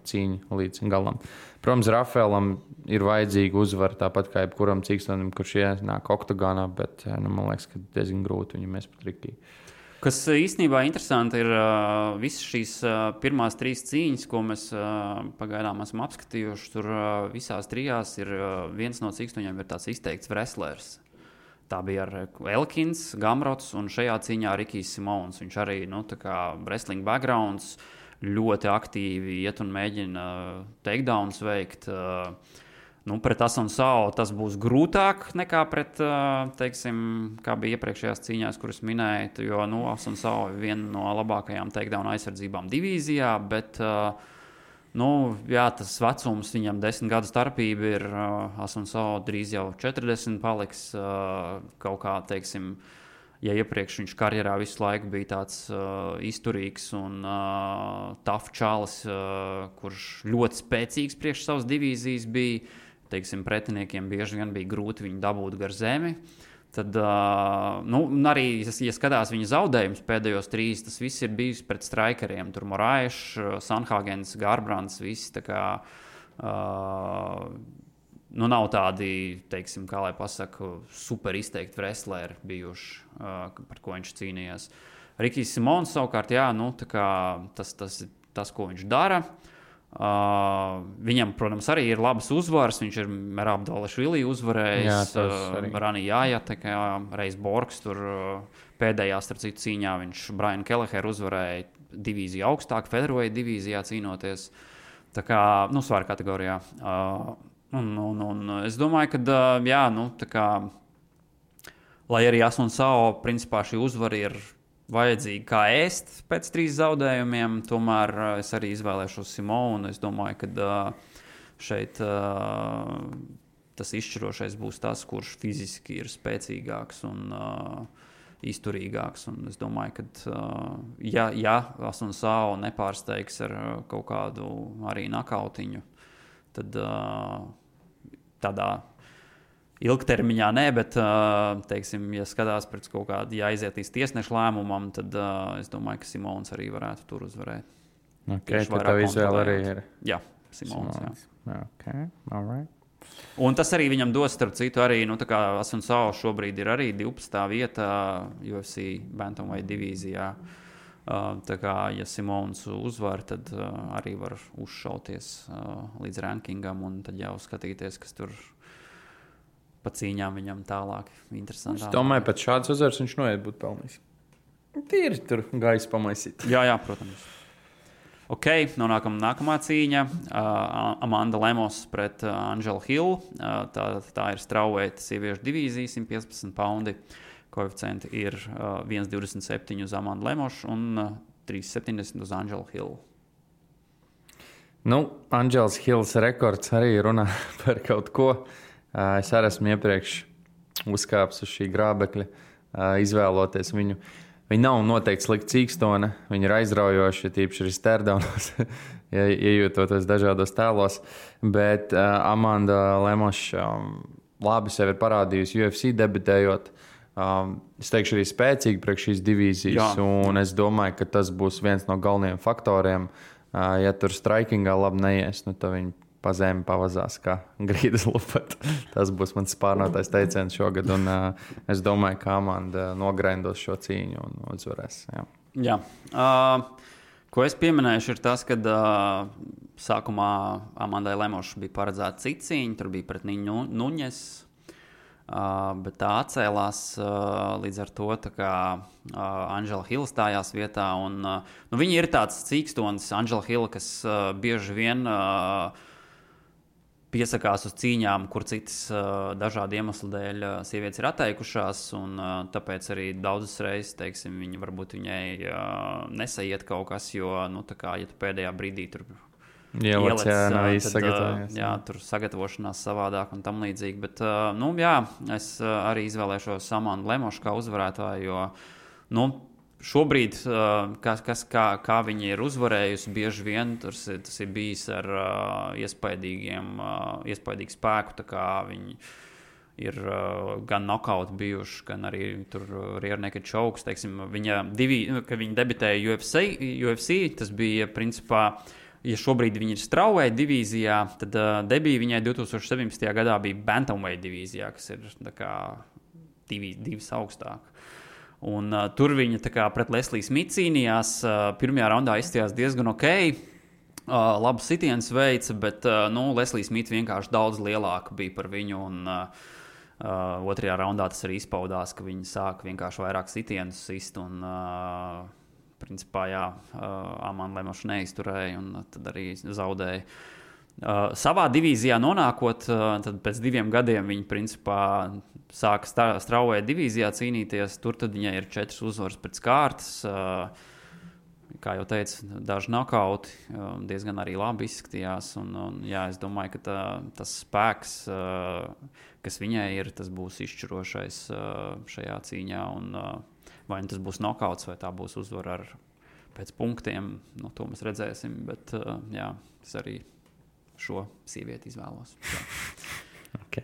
cīņa līdz galam. Protams, Rafaelam ir vajadzīga uzvara, tāpat kā jebkuram cīkstonim, kurš ienāk oktagonā, bet man liekas, ka diezgan grūti viņam mēs pat Rikiju. Kas īstenībā interesanti ir visas šīs pirmās 3 cīņas, ko mēs pagaidām esam apskatījuši. Tur visās 3 ir viens no cīkstoņiem ir tāds izteikts wrestlers. Tā bija ar Elkins, Gamrots un šajā cīņā Rikijs Simons. Viņš arī, tā kā wrestling backgrounds, ļoti aktīvi iet un mēģina takedowns veikt. Pret Asunu Sao tas būs grūtāk nekā pret, kā bija iepriekšējās cīņās, kuras minēju, jo Asunu Sao ir viena no labākajām takedown aizsardzībām divīzijā, bet tas vecums viņam 10 gadu starpība ir, Asunu Sao drīz jau 40 paliks, kaut kā, ja iepriekš viņš karjerā visu laiku bija tāds izturīgs un tough čalis, kurš ļoti spēcīgs priekš savas divīzijas bija, pretiniekiem bieži vien bija grūti viņu dabūt gar zemi. Tad arī, ja skatās viņa zaudējumus pēdējos 3, tas viss ir bijis pret strikeriem. Tur Moraes, Sanhagens, Garbrands, visi tā kā nav tādi, kā lai pasaka, super izteikti wrestleri bijuši, par ko viņš cīnījās. Rikijs Simons savukārt, tas, ko viņš dara. Viņam, protams, arī ir labas uzvaras. Viņš ir Merab Dvalishvili uzvarējis, Rani Jāja, Reis Borgs tur pēdējā starp citu cīņā viņš Brian Kelleher uzvarēja divīziju augstāk, featherweight divīzijā cīnoties. Tā kā, svara kategorijā. Un es domāju, ka, lai arī Asunu Sao, principā šī uzvara ir vajadzīgi kā ēst pēc 3 zaudējumiem, tomēr es arī izvēlēšos Simonu. Es domāju, ka šeit tas izšķirošais būs tas, kurš fiziski ir spēcīgāks un izturīgāks. Un es domāju, ka ja Asunu Sao nepārsteigs ar kaut kādu arī nakautiņu, tad tādā ilgtermiņā nē, bet, ja skatās pēc kaut kāda, ja aiziet līdz tiesnešu lēmumam, tad es domāju, ka Simons arī varētu tur uzvarēt. Tad tev izvēle arī ir? Jā, Simons. Okay, all right. Un tas arī viņam dos, starp citu, arī, Asunu Sao šobrīd ir arī 12. vietā UFC Bantamweight divīzijā. Tā kā, ja Simons uzvar, tad arī var uzšauties līdz rankingam un tad jau skatīties, kas tur pa cīņām viņam tālāk interesantāk. Es domāju, pēc šādas uzvaras viņš noiet būt pelnījis. Tīri tur gaisa pamaisīt. Jā, protams. Ok, nonākam nākamā cīņa. Amanda Lemos pret Angelu Hill. Tā ir strawweight sieviešu divīzija, 115 poundi. Koeficienti ir 1,27 uz Amandu Lemošu un 3,70 uz Angelu Hill. Angels Hills rekords arī runā par kaut ko. Es arī esmu iepriekš uzkāpis uz šī grābekļa, izvēloties viņu. Viņa nav noteikti slikta cīkstone, viņa ir aizraujoša, tīpaši arī stērdaunos, iejūtoties dažādos tēlos. Bet Amanda Lemoša labi sevi ir parādījusi UFC debitējot. Es teikšu arī spēcīgi priekš šīs divīzijas, un es domāju, ka tas būs viens no galvenajiem faktoriem. Ja tur strikingā labi neies, tad viņi pa zemi pavazās kā grīdas lupat. Tas būs mans spārnotais teiciens šogad, un es domāju, ka Amanda nogrindos šo cīņu un uzvarēs. Jā. Ko es pieminēšu ir tas, ka sākumā Amandai Lemošai bija paredzēta cita cīņa, tur bija pret Niņu Nuņes, bet tā atcēlās līdz ar to, Angela Hill stājās vietā, un viņa ir tāds cīkstonis, Angela Hill, kas bieži vien piesakās uz cīņām, kur citas dažādu iemeslu dēļ sievietes ir atteikušās, un tāpēc arī daudzas reizes, viņa varbūt viņai nesaiet kaut kas, jo, ja tu pēdējā brīdī tur ielec, tur sagatavošanās savādāk un tam līdzīgi, bet, es arī izvēlēšos Amandu Lemošu kā uzvarētāju, jo, šobrīd, kā viņi ir uzvarējusi, bieži vien tas ir bijis ar iespaidīgu spēku, tā kā viņi ir gan nokauti bijuši, gan arī tur rear naked chokes, teiksim, kad viņi debitēja UFC, tas bija principā, ja šobrīd viņi ir strawweight divīzijā, tad debija viņai 2017. gadā bija bantamweight divīzijā, kas ir tā kā divas augstāk. Un tur viņa tā kā pret Lesliju Smitu cīnījās, pirmajā raundā izstījās diezgan ok, labu sitienus veica, bet Leslija Smita vienkārši daudz lielāka bija par viņu, un otrajā raundā tas arī izpaudās, ka viņi sāka vienkārši vairāk sitienus sist, un principā, Amanda Lemoša neizturēja, un tad arī zaudēja. Savā divīzijā nonākot, tad pēc 2 gadiem viņi principā sāka strawweight divīzijā cīnīties. Tur tad viņai ir 4 uzvaras pēc kārtas. Kā jau teicu, daži nokauti diezgan arī labi izskatījās. Es domāju, ka tas spēks, kas viņai ir, tas būs izšķirošais šajā cīņā. Vai tas būs nokauts, vai tā būs uzvara pēc punktiem, to mēs redzēsim. Bet es arī šo sievieti izvēlos. Okay.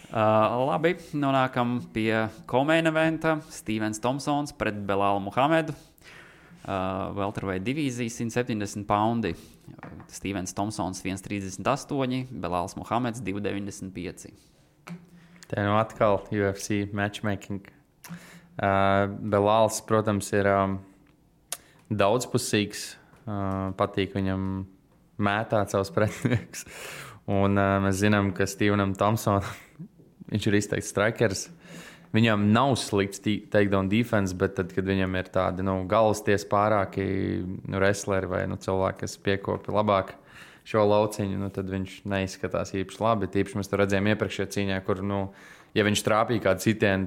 Labi, nonākam pie co-main eventa. Stevens Thompsons pret Belālu Muhamedu. Welterweight divīzija 170 poundi. Stevens Thompsons 1,38, Belāls Muhameds 2,95. Te atkal UFC matchmaking. Belāls, protams, ir daudzpusīgs. Patīk viņam mētāt savus pretiniekus. Un mēs zinām, ka Stevenam Thompsonam viņš ir izteikts strikers. Viņam nav slikts takedown defense, bet tad, kad viņam ir tādi galvasties pārāki wrestleri vai cilvēki, kas piekopja labāk šo lauciņu, tad viņš neizskatās īpaši labi. Tīpaši mēs to redzējām iepriekšējā cīņā, kur, ja viņš trāpīja kādu sitienu,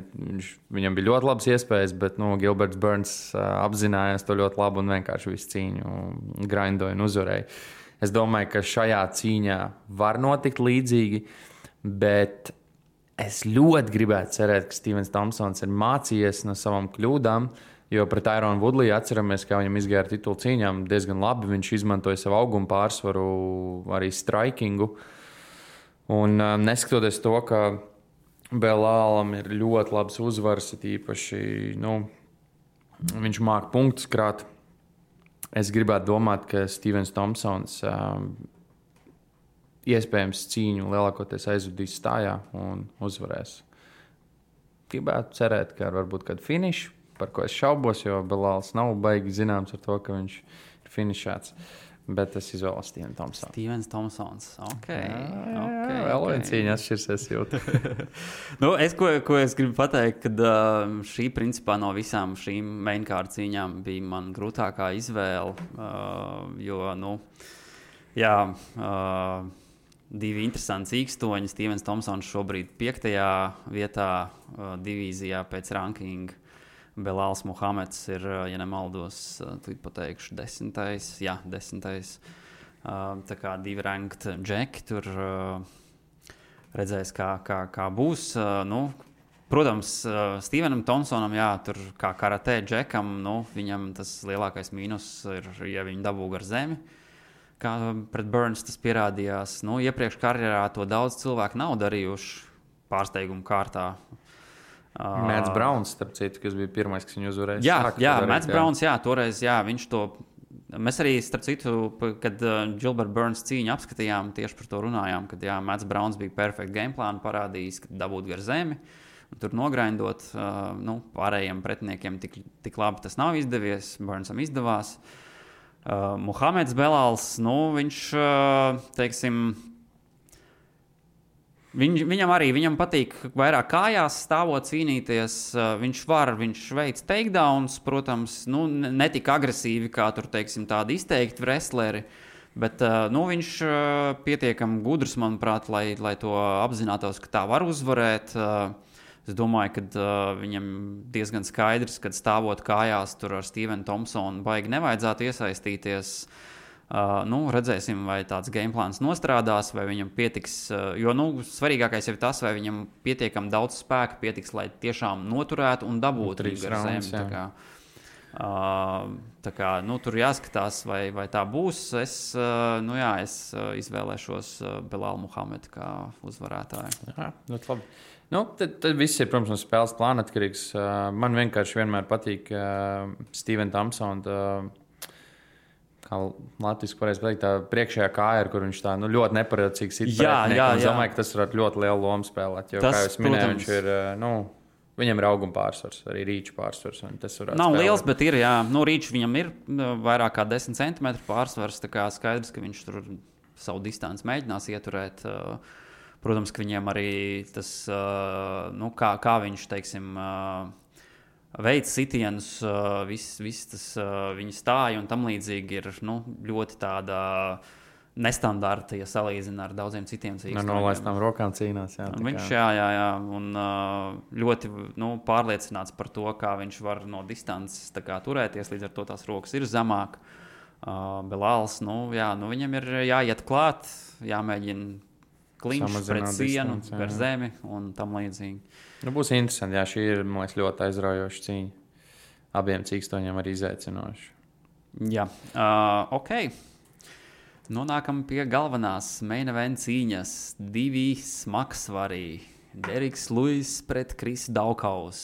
viņam bija ļoti labas iespējas, bet Gilberts Burns apzinājās to ļoti labi un vienkārši visu cīņu grindoja un uzvarēja. Es domāju, ka šajā cīņā var notikt līdzīgi, bet es ļoti gribētu cerēt, ka Stevens Thompsons ir mācījies no savām kļūdām, jo pret Tyrone Woodley atceramies, kā viņam izgāja ar titulu cīņām diezgan labi. Viņš izmantoja savu augumu pārsvaru, arī strikingu. Un neskatoties to, ka Belālam ir ļoti labs uzvaras, īpaši viņš māk punktus krāt. Es gribētu domāt, ka Stevens Thompsons iespējams cīņu lielākoties aizvadīs stājā un uzvarēs. Gribētu cerēt, ka varbūt kādu finišu, par ko es šaubos, jo Belāls nav baigi zināms ar to, ka viņš ir finišēts. Bet es izvēlos Stevenu Thompsonu. Stevens Thompsons. Vēl viena cīņa atšķirsies jūtu. Ko es gribu pateikt, kad šī principā no visām šīm mainkārt cīņām bija man grūtākā izvēle, jo, divi interesanti cīkstoņi. Stevens Thompsons šobrīd 5. vietā divīzijā pēc rankinga. Belāls Muhameds ir, ja nemaldos, pateikšu 10. Jā, 10. Tā kā 2 ranked džeki tur redzēs, kā būs. Protams, Stevenam Thompsonam, tur kā karatē džekam, viņam tas lielākais mīnus ir, ja viņi dabū gar zemi. Kā pret Burns tas pierādījās. Iepriekš karjerā to daudz cilvēku nav darījuši pārsteigumu kārtā. Mats Browns, starp citu, kas bija pirmais, kas viņu uzvarēja. Jā, Mats Browns, toreiz, viņš to. Mēs arī, starp citu, kad Gilbert Burns cīņu apskatījām, tieši par to runājām, kad Mats Browns bija perfekta gameplānu parādījis, kad dabūt gar zemi un tur nogrindot. Pārējiem pretiniekiem tik labi tas nav izdevies, Burnsam izdevās. Muhameds Belāls, viņš, teiksim, Viņam patīk vairāk kājās stāvot cīnīties. Viņš veic takedowns, protams, ne tik agresīvi kā tur, teiksim, tādi izteikti wrestleri, bet viņš pietiekami gudrs, manuprāt, lai to apzinātos, ka tā var uzvarēt. Es domāju, ka viņam diezgan skaidrs, kad stāvot kājās tur ar Stevenu Thompsonu baigi nevajadzētu iesaistīties. Redzēsim, vai tāds game plāns nostrādās, vai viņam pietiks. Jo svarīgākais ir tas, vai viņam pietiekami daudz spēka pietiks, lai tiešām noturētu un dabūtu 3 raundus. Tur jāskatās, vai tā būs. Es izvēlēšos Belālu Muhamedu kā uzvarētāju. Jā, ļoti labi. Tad viss ir, protams, no spēles plāna atkarīgs. Man vienkārši vienmēr patīk Steven Thompsona. Kā Latvijas pareizi pateikt, tā priekšējā kāja, kur viņš tā ļoti neparedzīgi sit pretinieki. Es domāju, ka tas varētu ļoti lielu lomu spēlēt. Jo, kā jūs minējāt, viņš ir, viņam ir auguma pārsvars, arī rīču pārsvars. Nav liels, bet ir, jā. Rīču viņam ir vairāk kā 10 cm pārsvars, tā kā skaidrs, ka viņš tur savu distanci mēģinās ieturēt. Protams, ka viņiem arī tas, kā viņš, teiksim, veids sitienus, viss tas viņa stāja un tam līdzīgi ir ļoti tāda nestandarta, ja salīdzina ar daudziem citiem cīkstiem. Nolaistām rokām cīnās. Viņš, un ļoti pārliecināts par to, kā viņš var no distances turēties, līdz ar to tās rokas ir zemāk. Belāls, viņam ir jāiet klāt, jāmēģina kliņš pret sienu, gar zemi un tam līdzīgi. Būs interesanti, šī ir, man liekas, ļoti aizraujoša cīņa. Abiem cīkstoņiem arī izaicinoši. Jā, ok. Nonākam pie galvenās main event cīņas. 2 smagsvarī. Deriks Luis pret Krisu Daukaus.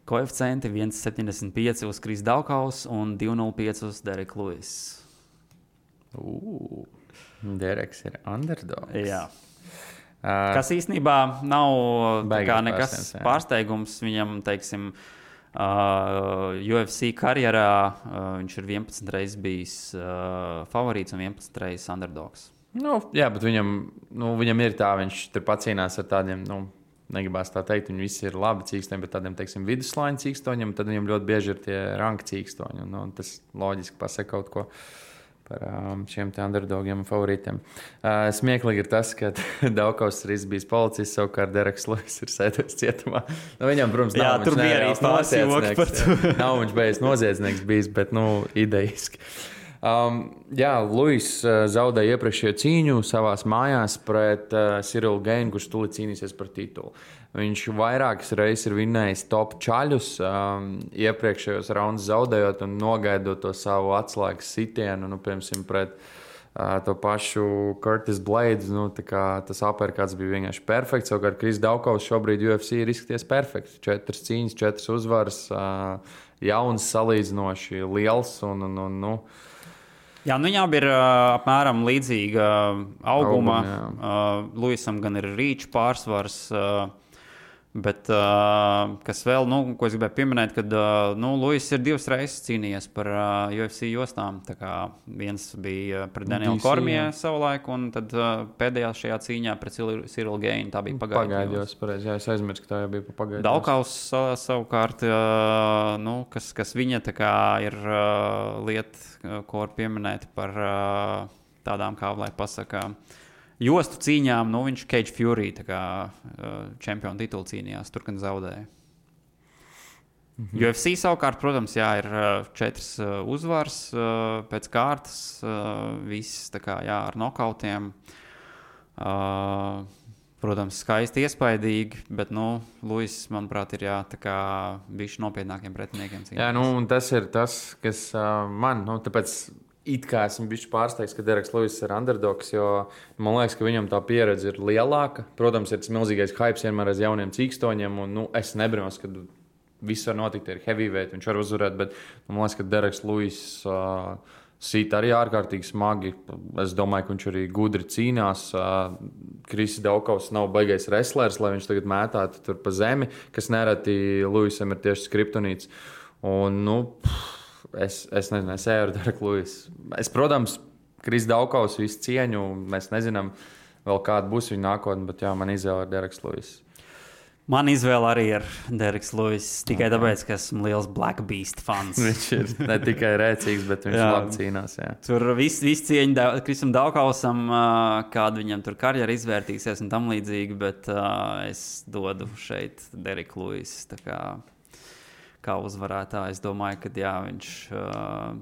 Koeficienti 1,75 uz Krisu Daukaus un 2,05 uz Deriku Luis. Deriks ir underdogs. Jā. Kas īstenībā nav nekas pārsteigums viņam, teiksim, UFC karjerā. Viņš ir 11 reizes bijis favorīts un 11 reizes underdogs. Jā, bet viņam ir tā, viņš tur pacīnās ar tādiem, negribās tā teikt, viņi visi ir labi cīkstoņi, bet tādiem, teiksim, viduslaiņu cīkstoņiem, tad viņam ļoti bieži ir tie ranka cīkstoņi. Tas loģiski pasaka kaut ko par šiem underdogiem un favorītiem. Smieklīgi ir tas, ka Daukaus ir bijis policists, savukārt Deriks Luis ir sēdējis cietumā. Viņam, protams, nav tur bija arī noziedznieks. Nav viņš bijis noziedznieks bijis, bet idejiski. Luis zaudēja iepriekšējo cīņu savās mājās pret Cyril Gainu, kurš tūlīt cīnīsies par titulu. Viņš vairākas reizes ir vinnējis top čaļus, iepriekšējos raundus zaudējot un nogaidot to savu atslēgas sitienu, piemēram, pret to pašu Curtis Blades. Tas uppercuts bija vienkārši perfekts. Savukārt Kris Daukaus šobrīd UFC ir izskaties perfekts. 4 cīņas, 4 uzvaras, jauns, salīdzinoši liels un viņām ir apmēram līdzīga auguma. Luisam gan ir rīču pārsvars, bet kas vēl, ko es gribēju pieminēt, kad Luis ir 2 reizes cīnījies par UFC jostām. Tā kā viens bija pret Danielu Kormiju savulaik, un tad pēdējā šajā cīņā pret Cyril Gainu tā bija pagaidījos. Jā, es aizmirsu, ka tā jau bija pagaidījos. Daukaus savukārt, kas viņa tā kā ir lieta, ko var pieminēt par tādām, kā lai pasaka, jostu cīņām, viņš Cage Fury čempionu titulu cīnījās, tur gan zaudēja. UFC savukārt, protams, ir 4 uzvaras pēc kārtas, viss ar nokautiem. Protams, skaisti iespaidīgi, bet Luis, manuprāt, ir bišķi nopietnākiem pretiniekiem cīnās. Jā, un tas ir tas, kas man, tāpēc it kā esmu bijis pārsteigts, ka Deriks Luis ir underdogs, jo man liekas, ka viņam tā pieredze ir lielāka. Protams, ir tas milzīgais hype vienmēr aiz jauniem cīkstoņiem, un es nebrīnos, ka viss var notikt ar heavyweight, viņš var uzvarēt, bet man liekas, ka Deriks Luis sit arī ārkārtīgi smagi. Es domāju, ka viņš arī gudri cīnās. Kris Daukaus nav baigais wrestlers, lai viņš tagad mētātu tur pa zemi, kas nereti Luisam ir tieši skriptonīts. Un, Es nezinu, es eju ar Deriku Luisu. Protams, Kris Daukaus visu cieņu. Mēs nezinām, vēl kāda būs viņa nākotne, bet man izvēle ir Deriks Luis. Man izvēle arī ir Deriks Luis. Tikai tāpēc, ka esmu liels Black Beast fans. Viņš ir ne tikai rēcīgs, bet viņš labi cīnās. Jā. Tur viss cieņa Krisam Daukausam, kāda viņam tur karjera izvērtīsies un tam līdzīgi, bet es dodu šeit Deriku Luis. Kā uzvarētājs, es domāju, ka viņš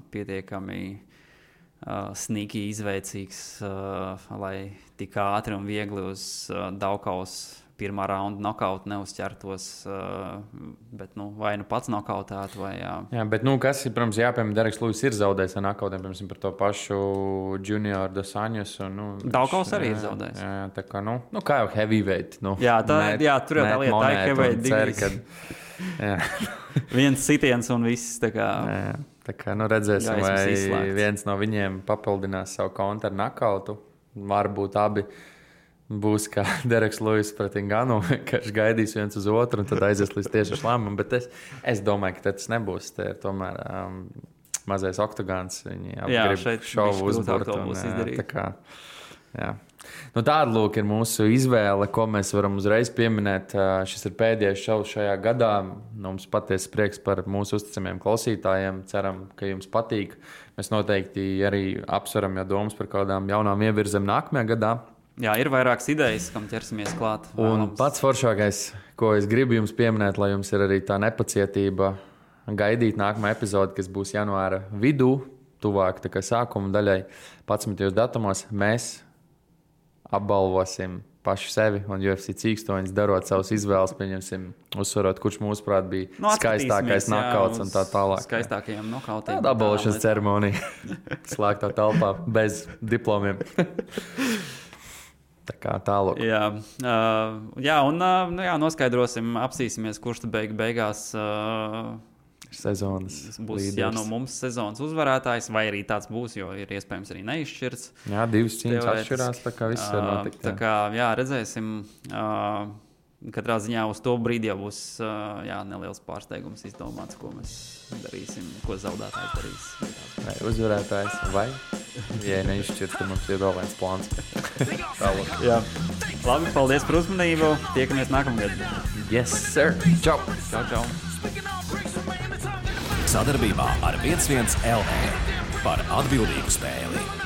pietiekami sneaky izveicīgs, lai tik ātri un viegli uz Daugavas pirmā raunda nokautu neuzķertos, bet vai pats nokautētu vai jā. Jā, bet kas ir, protams, jāpiemēr, Dereks Lūis ir zaudējis ar nokautiem, piemēram, par to pašu Junior Dos Anjos. Daugavs arī ir zaudējis. Jā, tā kā, kā jau heavyweight. Jā, tur jau tā lieta, tā ir heavyweight divīzija. Viens sitiens un viss, tā kā. Jā, tā kā, redzēsim, vai viens no viņiem papildinās savu kontu ar nokautu. Varbūt abi būs kā Dereks Lūis pret Nganu, ka viņš gaidīs viens uz otru un tad aizies līdz tieši lēmumam. Bet es domāju, ka tas nebūs. Te ir tomēr mazais oktagons. Viņi grib šovu uzburt. Tāda lūk ir mūsu izvēle, ko mēs varam uzreiz pieminēt. Šis ir pēdējais šovs šajā gadā. Mums patiesi prieks par mūsu uzticamiem klausītājiem. Ceram, ka jums patīk. Mēs noteikti arī apsveram jau domas par kādām jaunām ievirzēm nākamajā gadā. Jā, ir vairākas idejas, kam ķersimies klāt. Un pats foršākais, ko es gribu jums pieminēt, lai jums ir arī tā nepacietība gaidīt nākamā epizode, kas būs janvāra vidū, tuvāk tā kā sākuma daļai, 11. datumos, mēs apbalvosim paši sevi un UFC cīkstoņus, darot savus izvēles, pieņemsim, uzsvarot, kurš mūsuprāt bija skaistākais nokauts un tā tālāk. Skaistākajiem nokautiem. Tāda apbalvošanas ceremonija slēgtā telpā bez diplomiem. Tā kā tālāk. Jā, noskaidrosim, apsīsimies, kurš tad beigās sezonas būs līderis. No mums sezonas uzvarētājs, vai arī tāds būs, jo ir iespējams arī neizšķirts. Jā, 2 cīņas atšķirās, tā kā viss var notikt. Tā kā, redzēsim. Katrā ziņā uz to brīdi jau būs neliels pārsteigums izdomāts, ko mēs darīsim, ko zaudētājs darīs. Vai uzvarētājs, vai, ja neizšķirt, tad mums ir vēl viens plāns. Jā. Labi, paldies par uzmanību. Tiekamies nākamgad. Yes, sir. Čau. Čau. Sadarbībā ar 11 LV par atbildīgu spēli.